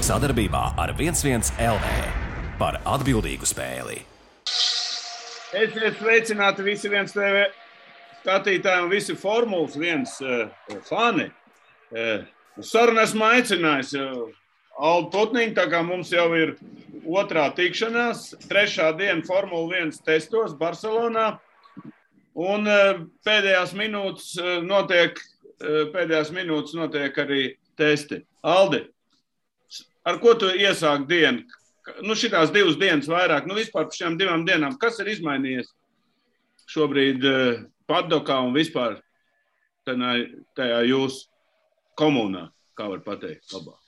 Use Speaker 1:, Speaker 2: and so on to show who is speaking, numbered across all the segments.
Speaker 1: Sadarbībā ar 11 LV par atbildīgu spēli.
Speaker 2: Esiet sveicināti visi 1 TV skatītāji un visi Formulas 1 fani. Sarunu esmu aicinājis Aldu Putniņu, tā kā mums jau ir otrā tikšanās, 3. diena Formula 1 testos Barcelonā. Un pēdējās minūtes notiek arī testi. Aldi, ar ko tu iesāk dienu? Šitās 2 dienas vairāk, vispār par šiem 2 dienām, kas ir izmainījies šobrīd padokā un vispār tajā jūsu komunā, kā var pateikt labāk?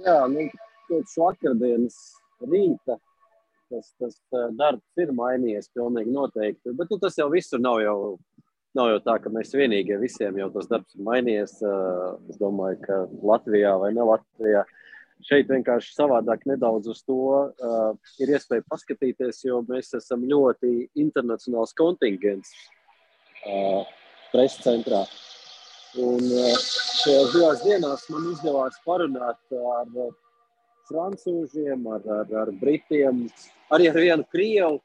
Speaker 3: Jā, kopš vakardienas rīta tas darbs ir mainījies pilnīgi noteikti, bet tas jau visur nav jau tā, ka mēs vienīgie visiem jau tas darbs ir mainījies. Es domāju, ka Latvijā vai ne Latvijā šeit vienkārši savādāk nedaudz uz to ir iespēja paskatīties, jo mēs esam ļoti internacionāls kontingents preses centrā. Un šajās 2 dienās man izdevās parunāt ar francūžiem, ar britiem, arī ar vienu krievu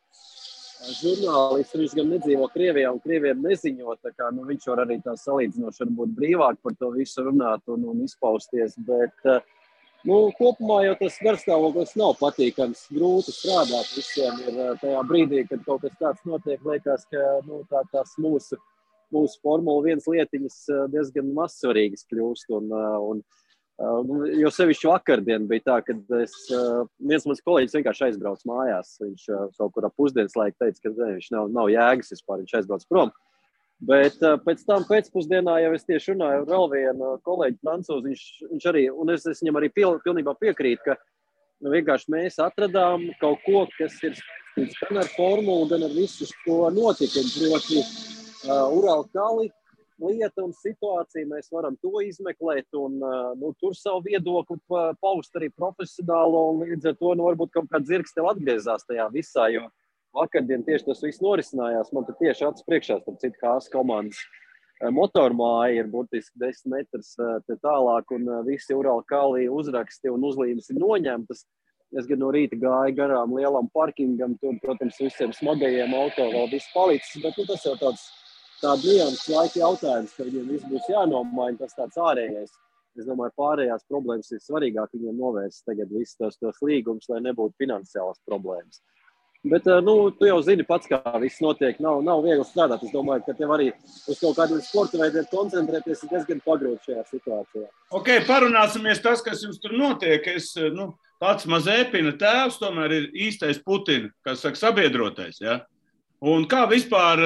Speaker 3: žurnālistu. Viņš gan nedzīvo Krievijā un krieviem neziņo, tā kā viņš var arī tā salīdzinoši varbūt brīvāk par to visu runāt un izpausties, bet kopumā jau tas garstāvoklis nav patīkams, grūti strādāt visiem ir tajā brīdī, kad kaut kas tāds notiek, liekas, ka tās mūsu Formula 1 lietiņas diezgan mazsvarīgas kļūst. Jo sevišķi vakardien bija tā, kad viens mans kolēģis vienkārši aizbrauc mājās. Viņš kaut kur ap pusdienas laiku teica, ka viņš nav jēgas vispār, viņš aizbrauc prom. Bet pēc tam pēcpusdienā jau es tieši runāju ar vēl vienu kolēģi francūzi, viņš arī, un es viņam arī pilnībā piekrītu, ka vienkārši mēs atradām kaut ko, kas ir saistīts gan ar formulu, gan ar visu šo notikumu, proti Uralkali lieta un situācija, mēs varam to izmeklēt un tur savu viedokli paust arī profesionālo, un līdz ar to varbūt kaut kāds zirgs tev atgriezās tajā visā, jo vakardien tieši tas viss norisinājās. Man te tieši acis priekšā, starp citu, Haas komandas motormāja ir burtiski 10 metrus te tālāk, un visi Uralkali uzraksti un uzlīmes ir noņemtas. Es gan no rīta gāju garām lielam parkingam, tur, protams, visiem smagajiem auto vēl viss palicis, bet tas jau tāds liels laika jautājums, ka viņiem viss būs jānomaina, tas tāds ārējais. Es domāju, pārējās problēmas ir svarīgāk viņiem novērst tagad visus tos līgumus, lai nebūtu finansiālas problēmas. Bet, tu jau zini pats, kā viss notiek, nav viegli strādāt. Es domāju, ka tev arī uz kaut kādiem sporta veidiem koncentrēties ir diezgan pagrūti šajā situācijā.
Speaker 2: Ok, parunāsimies tas, kas jums tur notiek. Pats Mazepina tēvs tomēr ir īstais Putina, kas saka sabiedrotais, ja? Un kā vispār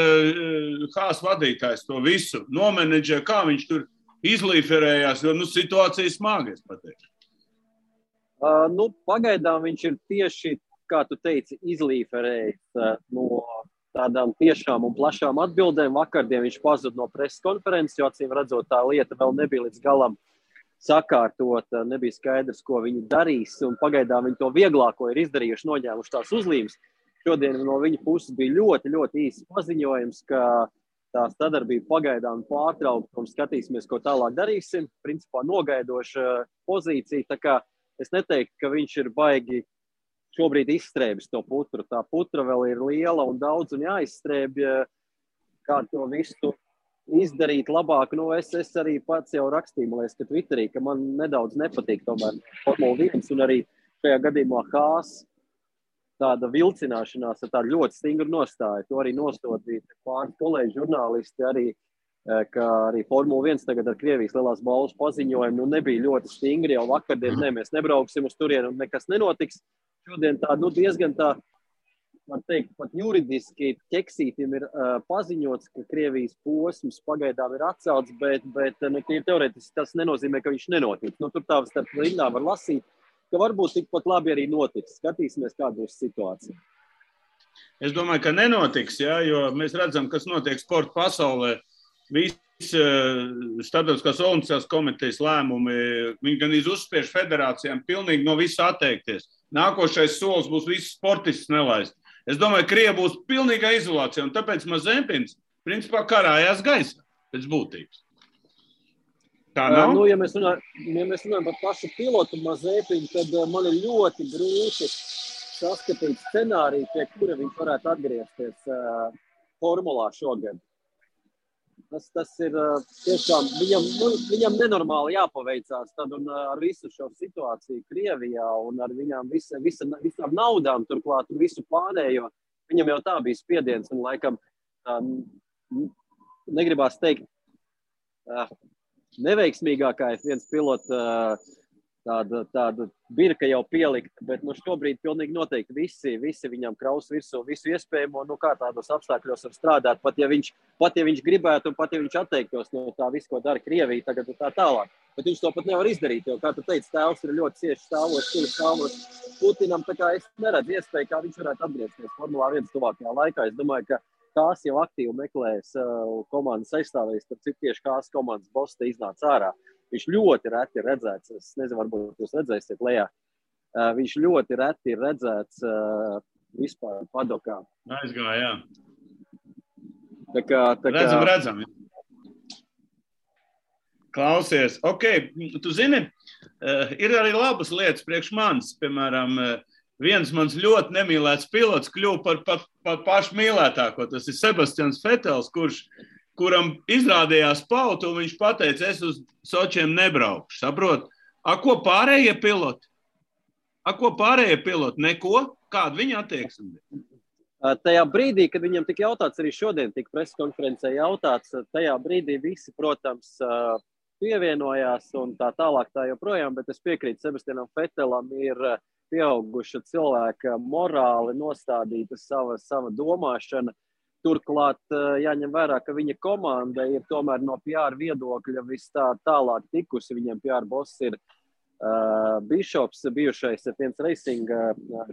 Speaker 2: Haas vadītājs to visu nomenedžē, kā viņš tur izlīferējās, jo situācija smaga, es pateikšu.
Speaker 3: Pagaidām viņš ir tieši, kā tu teici, izlīferējis no tādām tiešām un plašām atbildēm. Vakardien viņš pazuda no preses konferences, jo acīm redzot, tā lieta vēl nebija līdz galam sakārtota, nebija skaidrs, ko viņi darīs, un pagaidām viņi to vieglāko ir izdarījuši, noņēmuši tās uzlīmes. Šodien no viņa puses bija ļoti, ļoti īsts paziņojums, ka tā sadarbība pagaidām pārtraukta un skatīsimies, ko tālāk darīsim. Principā nogaidoša pozīcija, tā kā es neteiktu, ka viņš ir baigi šobrīd izstrēbis to putru. Tā putra vēl ir liela un daudz un jāizstrēbj, kā to visu izdarīt labāk. Es arī pats jau rakstīju, man liekas, ka Twitterī, ka man nedaudz nepatīk tomēr Formula 1 un arī šajā gadījumā Haas tāda vilcināšanās ar tādu ļoti stingru nostāju. To arī nostodīja pāris kolēģi žurnālisti arī, ka arī Formula 1 tagad ar Krievijas lielās balvas paziņojumu nebija ļoti stingri, jau vakardien mēs nebrauksim uz turienu un nekas nenotiks. Šodien diezgan var teikt, pat juridiski ķeksītim ir paziņots, ka Krievijas posms pagaidām ir atcelts, bet teorētiski tas nenozīmē, ka viņš nenotiks. Tur tā starp rindām var lasīt, ka varbūt tikpat labi arī notiks. Skatīsimies, kāda būs situācija.
Speaker 2: Es domāju, ka nenotiks, ja, jo mēs redzam, kas notiek sporta pasaulē. Visi starptautiskās olimpiskās komitejas lēmumi, viņi gan uzspiež federācijām pilnīgi no visa atteikties. Nākošais solis būs visus sportistus nelaist. Es domāju, ka Krievi būs pilnīgā izolācijā, un tāpēc Mazepins principā karājās gaisā pēc būtības. Tā nav?
Speaker 3: Ja mēs runājam par pašu pilotu Mazepinu, tad man ir ļoti grūti saskatīt scenāriju, pie kura viņš varētu atgriezties formulā šogad. Tas ir tiešām, viņam nenormāli jāpaveicās tad un ar visu šo situāciju Krievijā un ar viņām visām naudām turklāt un visu pārējo. Viņam jau tā bija spiediens un laikam negribās teikt neveiksmīgākais viens pilots tāda birka jau pielikta, bet šobrīd pilnīgi noteikti visi viņam kraus virsū visu iespējamo, kā tādos apstākļos var strādāt, pat ja viņš gribētu un pat ja viņš atteiktos no tā visu, ko dara Krievija tagad un tā tālāk. Bet viņš to pat nevar izdarīt, jo, kā tu teici, tēvs ir ļoti cieši stāvos Putinam, tā kā es neredzu iespēju, kā viņš varētu atgriezties Formulā 1 tuvākajā laikā. Es domāju, ka Kās jau aktīvi meklēs komandas aizstāvēs, tad cik tieši Kās komandas boss te iznāca ārā. Viņš ļoti reti ir redzēts, es nezinu, varbūt jūs redzēsiet lejā, viņš ļoti reti ir redzēts vispār padokā.
Speaker 2: Aizgāja,
Speaker 3: jā.
Speaker 2: Redzam. Klausies, tu zini, ir arī labas lietas priekš manis, piemēram, viens mans ļoti nemīlēts pilots kļuva par pašu mīlētāko, tas ir Sebastians Vetels, kuram izrādījās pautu, un viņš pateica, es uz Sočiem nebraukšu, saprot? Ko pārējie piloti? Neko? Kāda viņa attieksme?
Speaker 3: Tajā brīdī, kad viņam tika jautāts, arī šodien tika preskonferencē jautāts, tajā brīdī visi, protams, pievienojās un tā tālāk tā joprojām, bet es piekrītu Sebastianam Vetelam ir pieauguša cilvēka morāli nostādīta sava domāšana. Turklāt jāņem vērā, ka viņa komanda ir tomēr no PR viedokļa vis tālāk tikusi. Viņam PR boss ir Bišops, bijušais F1 Racing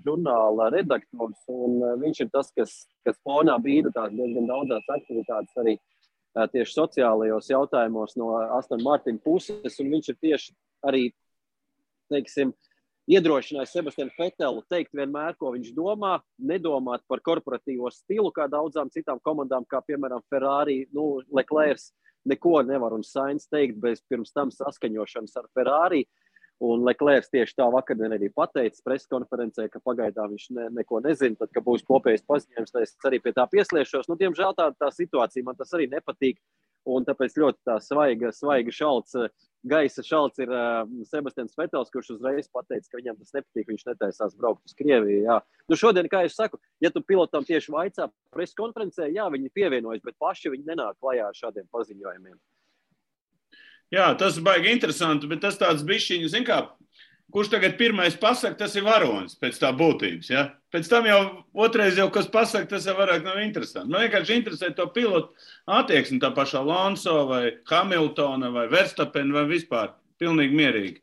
Speaker 3: žurnāla redaktors, un viņš ir tas, kas fonā bīda tās diezgan daudzās aktivitātes arī tieši sociālajos jautājumos no Aston Martin puses, un viņš ir tieši arī, teiksim, iedrošinājis Sebastianu Vetelu teikt vienmēr, ko viņš domā, nedomāt par korporatīvo stilu, kā daudzām citām komandām, kā piemēram Ferrari, Leclerc neko nevar un Sainz teikt bez pirms tam saskaņošanas ar Ferrari, un Leclerc tieši tā vakardien arī pateica preskonferencē, ka pagaidām viņš neko nezina, tad, ka būs kopējais paziņojums, tad es arī pie tā piesliešos. Diemžēl tā situācija man tas arī nepatīk, un tāpēc ļoti tā svaiga šalts, gaisa šalts ir Sebastians Vetels, kurš uzreiz pateica, ka viņam tas nepatīk, viņš netaisās braukt uz Krieviju. Jā. Šodien, kā es saku, ja tu pilotam tieši vaicā preskonferencē, jā, viņi pievienojas, bet paši viņi nenāk klajā ar šādiem paziņojumiem.
Speaker 2: Jā, tas baigi interesanti, bet tas tāds bišķiņi, zin kā, kurš tagad pirmais pasaka, tas ir varonis pēc tā būtības, ja? Pēc tam jau otrais jau, kas pasaka, tas jau vairāk nav interesanti. Man vienkārši interesē to pilotu attieksmi, tā pašā Alonso vai Hamiltona vai Verstappen vai vispār. Pilnīgi mierīgi.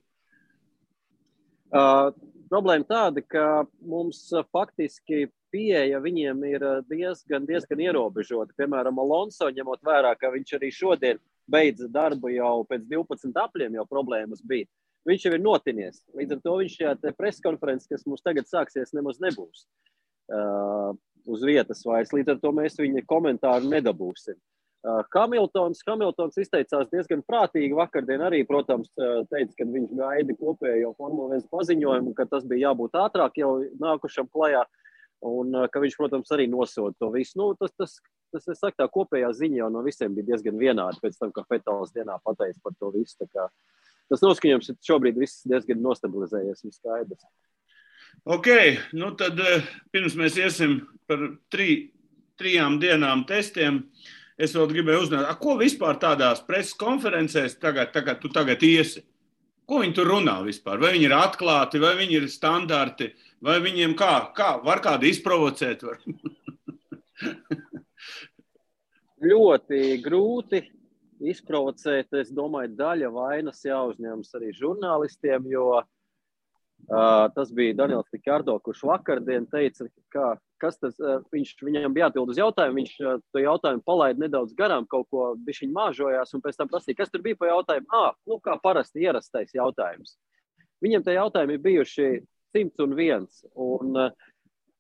Speaker 3: Problēma tāda, ka mums faktiski pieeja viņiem ir diezgan ierobežota. Piemēram, Alonso, ņemot vērā, ka viņš arī šodien beidza darbu jau pēc 12 apļiem, jau problēmas bija. Viņš jau ir notinies. Līdz ar to viņš šajā preskonferences, kas mums tagad sāksies, nemaz nebūs uz vietas vairs. Līdz ar to mēs viņa komentāru nedabūsim. Hamiltons izteicās diezgan prātīgi vakardien arī, protams, teica, ka viņš gaida kopējo Formula 1 paziņojumu, ka tas bija jābūt ātrāk jau nākušam klajā un ka viņš, protams, arī nosoda to visu. Tas es saku, tā kopējā ziņa jau no visiem bija diezgan vienāda pēc tam, ka Vetels dienā pateica par to visu. Tā kā tas noskaņojums šobrīd viss diezgan nostabilizējies un skaidrs.
Speaker 2: Tad pirms mēs iesim par 3 dienām testiem, es vēl gribēju uzzināt, ko vispār tādās preses konferencēs tu tagad iesi? Ko viņi tur runā vispār? Vai viņi ir atklāti, vai viņi ir standarti, vai viņiem kā var kādu izprovocēt?
Speaker 3: Ļoti grūti izprovocēt, es domāju, daļa vainas jāuzņemas arī žurnālistiem, jo tas bija Daniels Rikardo, kurš vakardien teica, kas tas, viņam bija jāatbild uz jautājumu, viņš to jautājumu palaida nedaudz garām, kaut ko bišķiņ māžojās, un pēc tam prasīja, kas tur bija pa jautājumu? Kā parasti ierastais jautājums. Viņam tie jautājumi ir bijuši 101, un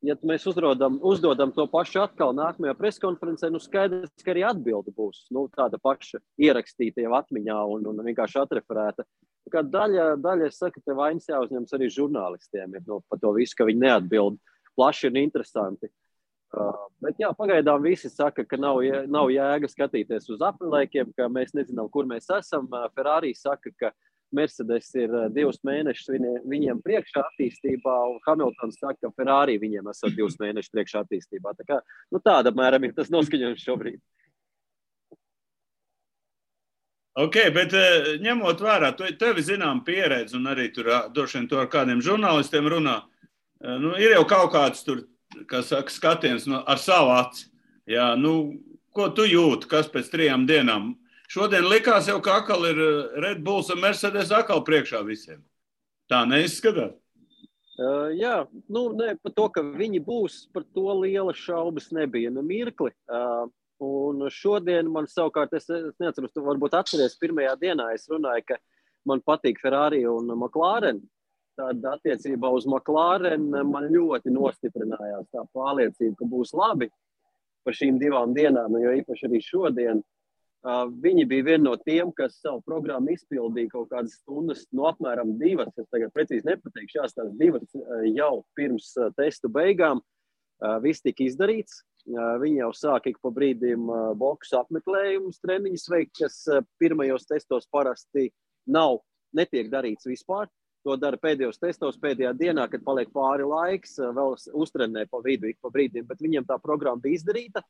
Speaker 3: ja mēs uzdodam to pašu atkal nākamajā preskonferencē, skaidrs, ka arī atbilde būs tāda paša ierakstīta jau atmiņā un vienkārši atreferēta. Kā daļa es saku, te vainas jāuzņems arī žurnālistiem par to visu, ka viņi neatbild plaši un interesanti. Bet jā, pagaidām visi saka, ka nav jēga skatīties uz aprilēkiem, ka mēs nezinām, kur mēs esam. Ferrari saka, ka Mercedes ir 2 mēnešus viņiem priekšā attīstībā, un Hamiltons saka, ka Ferrari viņiem esat 2 mēnešus priekšā attīstībā. Tā kā, tāda mēram ir tas noskaņojums šobrīd.
Speaker 2: Ok, bet ņemot vērā, tevi zinām pieredzi, un arī tur droši vien to ar kādiem žurnālistiem runā, ir jau kaut kāds tur, kā saka, skatiens ar savu aci. Jā, ko tu jūti, kas pēc 3 dienām? Šodien likās jau, ka atkal ir Red Bulls un Mercedes atkal priekšā visiem. Tā neizskatās?
Speaker 3: Jā, par to, ka viņi būs, par to liela šaubas nebija mirkli. Un šodien man savukārt, es neatceros, tu varbūt atceries, pirmajā dienā es runāju, ka man patīk Ferrari un McLaren. Tad attiecībā uz McLaren man ļoti nostiprinājās tā pārliecība, ka būs labi par šīm 2 dienām, jo īpaši arī šodien. Viņi bija viena no tiem, kas savu programmu izpildīja kaut kādas stundas, apmēram 2, es tagad precīzi nepateikšu, tās 2 jau pirms testu beigām. Viss tika izdarīts. Viņi jau sāk ik pa brīdim boksu apmeklējumus, treniņus veikt, kas pirmajos testos parasti netiek darīts vispār. To dara pēdējos testos, pēdējā dienā, kad paliek pāri laiks, vēl uztrenē pa vidu ik pa brīdim, bet viņiem tā programma bija izdarīta.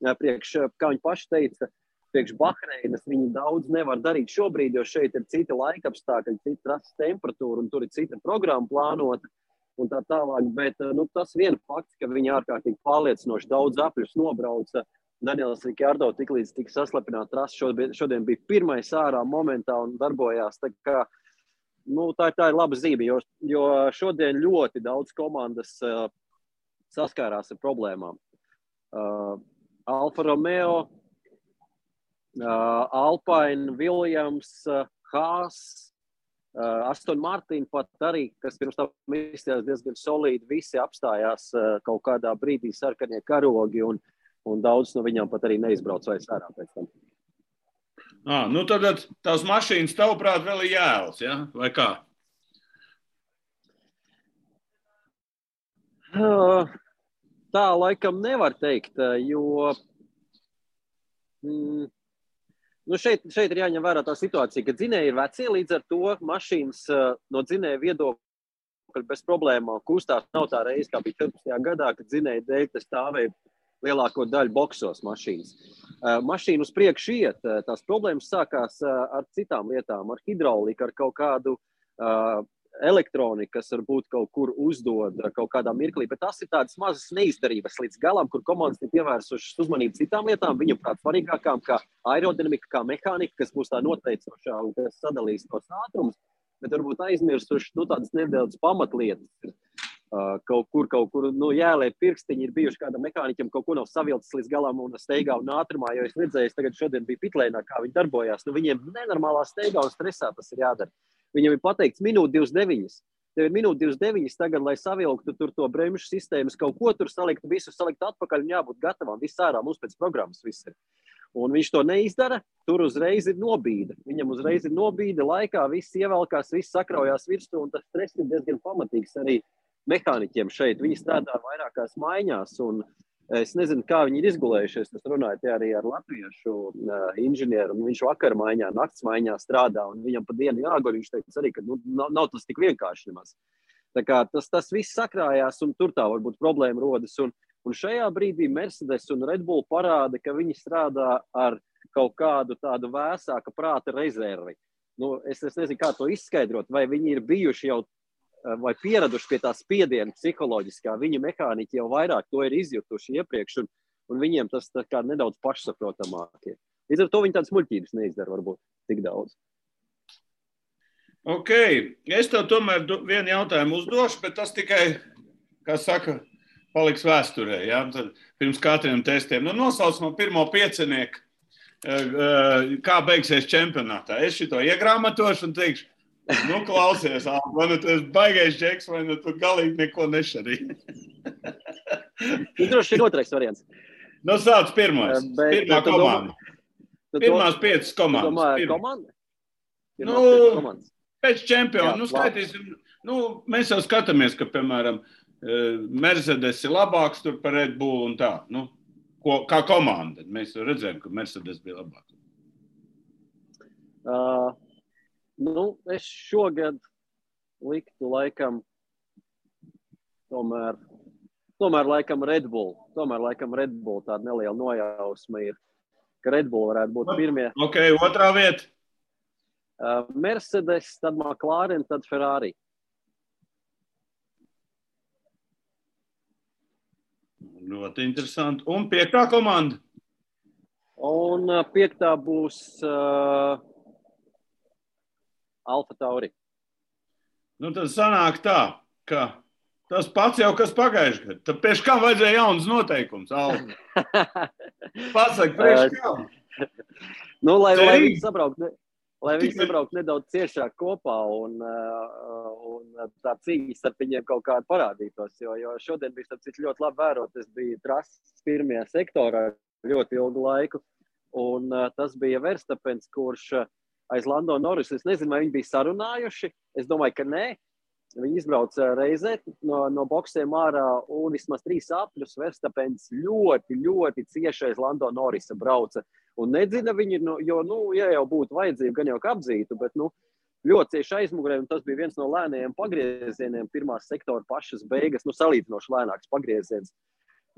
Speaker 3: Kā viņi paši teica, priekš Bahreinas viņi daudz nevar darīt šobrīd, jo šeit ir cita laikapstākļi, cita trases temperatūra un tur ir cita programma plānota un tā tālāk. Bet tas viena fakts, ka viņi ārkārtīgi pārliecinoši daudz apļus nobrauca. Daniels Ricciardo tiklīdz tika saslapināta trasa, šodien bija pirmais ārā momentā un darbojās. Tā kā, tā ir laba zīme, jo šodien ļoti daudz komandas saskārās ar problēmām. Alfa Romeo, Alpine, Williams, Haas, Aston Martin pat arī, kas pirms tam izstājās diezgan solīdi, visi apstājās kaut kādā brīdī sarkanie karogi un daudz no viņām pat arī neizbrauc vairs ārā pēc tam.
Speaker 2: Tad tās mašīnas tavuprāt vēl ir jēlas, ja? Vai kā?
Speaker 3: Tā laikam nevar teikt, jo šeit ir jāņem vērā tā situācija, ka dzinēji ir vecie, līdz ar to mašīnas no dzinēja viedokļa bez problēmām kustās. Nav tā reize, kā bija 14. gadā, kad dzinēja dēļ tas stāvēja lielāko daļu boksos mašīnas. Mašīna uz priekšu iet, tās problēmas sākās ar citām lietām, ar hidrauliku, ar kaut kādu elektroniku, kas varbūt kaut kur uzdod kaut kādā mirklī, bet tas ir tādas mazas neizdarības līdz galam, kur komandas ir pievērsušas uzmanību citām lietām, viņam prāt svarīgākām, kā aerodinamika, kā mehānika, kas būs tā noteicošā un kas sadalīs tos ātrumus, bet varbūt aizmirsuši tādas nedaudz pamatlietas. Kaut kur jālē pirkstiņi ir bijuši kādam mehāniķam, kaut ko nav savilcis līdz galam un steigā un ātrumā, jo es redzēju, tagad šodien bija pitlēnā, kā viņi darbojās. Viņiem nenormālā steigā un stresā tas ir jādara. Viņam ir pateikts minūte 29. Tev ir minūte 29 tagad, lai savilktu tur to bremžu sistēmas, kaut ko tur salikt, visu salikt atpakaļ un jābūt gatavam. Viss ārā mums pēc programmas viss ir. Un viņš to neizdara, tur uzreiz ir nobīde. Viņam uzreiz ir nobīde laikā, viss ievelkās, viss sakraujās virsū, un tas stress ir diezgan pamatīgs arī mehāniķiem šeit. Viņi strādā vairākās maiņās, un es nezinu, kā viņi ir izgulējušies. Es runāju arī ar latviešu inženieru, un viņš vakar maiņā, nakts maiņā strādā, un viņam pa dienu jāguļ. Viņš teica arī, ka nav tas tik vienkārši nemaz. Tā kā tas viss sakrājās, un tur tā varbūt problēma rodas. Un šajā brīdī Mercedes un Red Bull parāda, ka viņi strādā ar kaut kādu tādu vēsāka prāta rezervi. Es nezinu, kā to izskaidrot, vai viņi ir bijuši jau vai pieraduši pie tā spiediena psiholoģiskā. Viņa mehāniķi jau vairāk to ir izjutuši iepriekš, un viņiem tas tā kā nedaudz pašsaprotamāk ir. Līdz ar to viņi tādas muļķības neizdara varbūt tik daudz.
Speaker 2: Ok, es tev tomēr vienu jautājumu uzdošu, bet tas tikai, kā saka, paliks vēsturē, ja? Tad pirms katriem testiem. Nosauc man pirmo piecinieku, kā beigsies čempionātā. Es šito iegrāmatošu un teikšu, klausies, vai tu esi baigais džeks, vai tu galīgi neko nešarī.
Speaker 3: Droši ir otrais variants.
Speaker 2: Nu, sāc pirmais. Pirmā komanda. Pirmās 5 komandas.
Speaker 3: Domāju, komanda?
Speaker 2: Pēc čempiona. Skaitīsim. Mēs jau skatāmies, ka, piemēram, Mercedes ir labāks tur par Red Bull un tā. Kā komanda. Mēs jau redzējām, ka Mercedes bija labāks.
Speaker 3: Es šogad liktu laikam tomēr laikam Red Bull. Tomēr laikam Red Bull tāda neliela nojausma ir, ka Red Bull varētu būt pirmie.
Speaker 2: Ok, otrā vieta.
Speaker 3: Mercedes, tad McLaren, tad Ferrari.
Speaker 2: Ļoti interesanti. Un 5. komanda?
Speaker 3: Un 5. būs Alfa Tauri.
Speaker 2: Tad sanāk tā, ka tas pats jau kas pagājuši gadu. Tad priekš kam vajadzēja jaunas noteikums, Alfa? Pasaka, priekš kam?
Speaker 3: Lai viņi sabrauktu nedaudz ciešāk kopā un tā cīņa starp viņiem kaut kāda parādītos, jo šodien bija starp citu ļoti labi vērot, es biju trases pirmajā sektorā ļoti ilgu laiku, un tas bija Verstapens, kurš aiz Lando Norris, es nezinu, vai viņi bija sarunājuši, es domāju, ka nē, viņi izbrauca reizē no boksiem ārā un vismaz 3 apļus Verstapens ļoti, ļoti cieši aiz Lando Norrisa brauca. Un nedzina viņi, jo, ja jau būtu vajadzība, gan jau apzītu, bet, ļoti cieši aizmugurē, un tas bija viens no lēnajiem pagriezieniem, pirmās sektora pašas beigas, salīdzinoši lēnāks pagrieziens.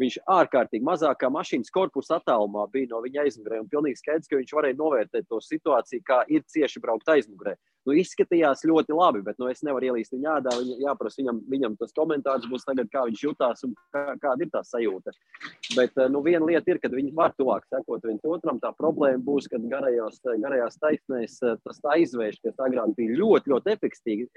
Speaker 3: Viņš ārkārtīgi mazākā mašīnas korpusa attālumā bija no viņa aizmugurē, un pilnīgi skaidrs, ka viņš varēja novērtēt to situāciju, kā ir cieši braukt aizmugurē. Izskatījās ļoti labi, bet es nevaru ielīst viņa ādā, jāprasa viņam tas komentārs būs tagad, kā viņš jutās un kāda ir tā sajūta. Bet, viena lieta ir, kad viņi var tuvāk sekot viens otram, tā problēma būs, kad garajās taisnēs tas aizvērš, kas agrāk bija ļoti, ļoti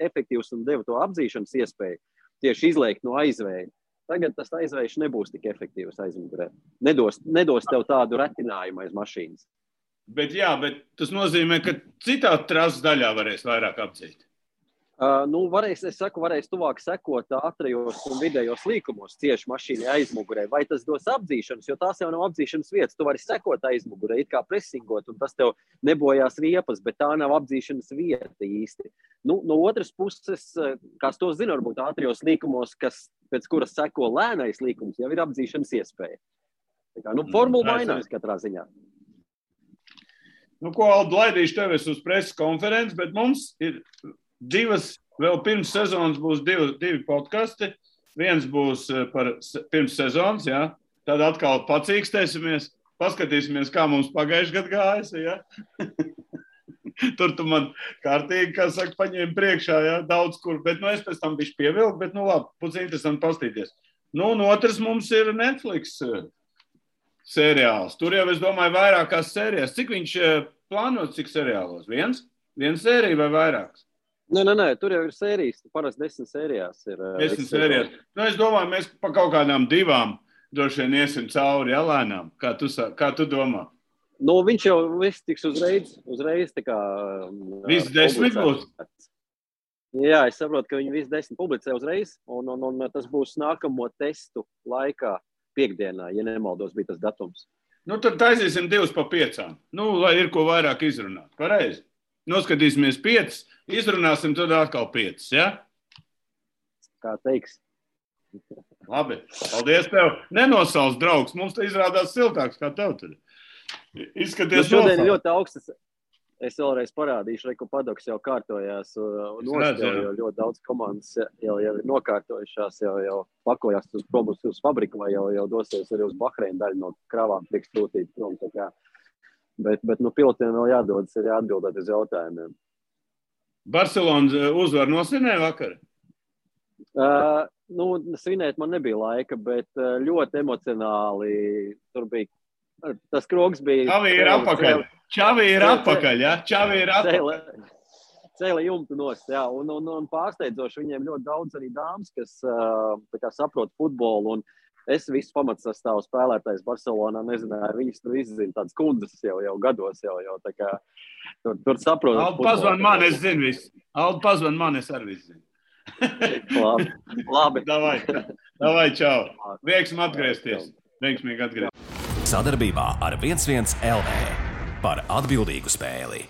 Speaker 3: efektīvs un deva to apzīšanas iespēju tieši izliekt no aizvēja. Tagad tas aizvējš nebūs tik efektīvs aizmugurē. Nedos tev tādu retinājumu aiz mašīnas.
Speaker 2: Bet tas nozīmē, ka citā trases daļā varēs vairāk apdzīt.
Speaker 3: Varēs tuvāk sekot ātrajos un vidējos līkumos cieši mašīnai aizmugurē. Vai tas dos apdzīšanas, jo tās jau nav apdzīšanas vietas. Tu vari sekot aizmugurē, it kā presingot, un tas tev nebojās riepas, bet tā nav apdzīšanas vieta īsti. No otras puses, kas to zina, varbūt ātrajos līkumos, pēc kuras seko lēnais līkums, jau ir apdzīšanas iespēja. Formula mainās katrā ziņā.
Speaker 2: Ko, Aldi, laidīšu tevi uz preses konferenci, bet mums ir 2, vēl pirms sezonas būs 2 podkasti. Viens būs pirms sezonas, jā. Tad atkal pacīkstēsimies, paskatīsimies, kā mums pagājuši gadu gājas, jā. Tur tu man kārtīgi, kā saka, paņēmi priekšā, jā, daudz kur, bet es pēc tam bišķi pievilku, bet labi, būs interesanti pastīties. Un otrs mums ir Netflix seriāls. Tur jau, es domāju, vairākās sērijas. Cik viņš plānots, cik seriālos? Viens sērija vai vairāks?
Speaker 3: Nē, tur jau ir sērijas. Parasti 10 sērijās ir.
Speaker 2: 10 sērijās. Es domāju, mēs pa kaut kādām 2 droši vien iesim cauri, ja, lēnām. Kā tu domā?
Speaker 3: Viņš jau viss tiks uzreiz tā kā...
Speaker 2: Viss 10 būs?
Speaker 3: Jā, es saprotu, ka viņi viss 10 publicē uzreiz, un tas būs nākamo testu laikā. Piekdienā, ja nemaldos, bija tas datums.
Speaker 2: Tad taisīsim 2 pa 5. Lai ir ko vairāk izrunāt. Pareizi. Noskatīsimies 5, izrunāsim tad atkal 5, ja?
Speaker 3: Kā teiks.
Speaker 2: Labi, paldies tev. Nenosauc, draugs, mums te izrādās siltāks, kā tev tur. Izskaties
Speaker 3: šodien ļoti augstas. Es vēlreiz parādīšu, ka padoks jau kārtojās un jo ļoti daudz komandas jau ir nokārtojušās, jau pakojās uz fabriku vai jau dosies arī uz Bahreinu daļu no kravām tiks sūtīt prom. Bet pilotiem vēl jādodas arī atbildēt uz jautājumiem.
Speaker 2: Barcelonas uzvar nosvinēja vakar?
Speaker 3: Svinēt man nebija laika, bet ļoti emocionāli tur bija. Tas krogs bija...
Speaker 2: Čavi ir apakaļ, ja?
Speaker 3: Cēla jumtu nost, jā. Un pārsteidzoši viņiem ļoti daudz arī dāmas, kas saprot futbolu. Un es visu pamatsastāvu spēlētājs Barcelonā nezināju. Viņas tur izzina tādas kundzes jau gados. Tā kā tur saprot.
Speaker 2: Aldi pazvan man, es zinu visu. Aldi pazvan man, es arī visu zinu.
Speaker 3: Labi.
Speaker 2: Davai, čau. Veiksmi atgriezties. Veiksmīgi atgriezties.
Speaker 1: Sadarbībā ar 11 LV par atbildīgu spēli.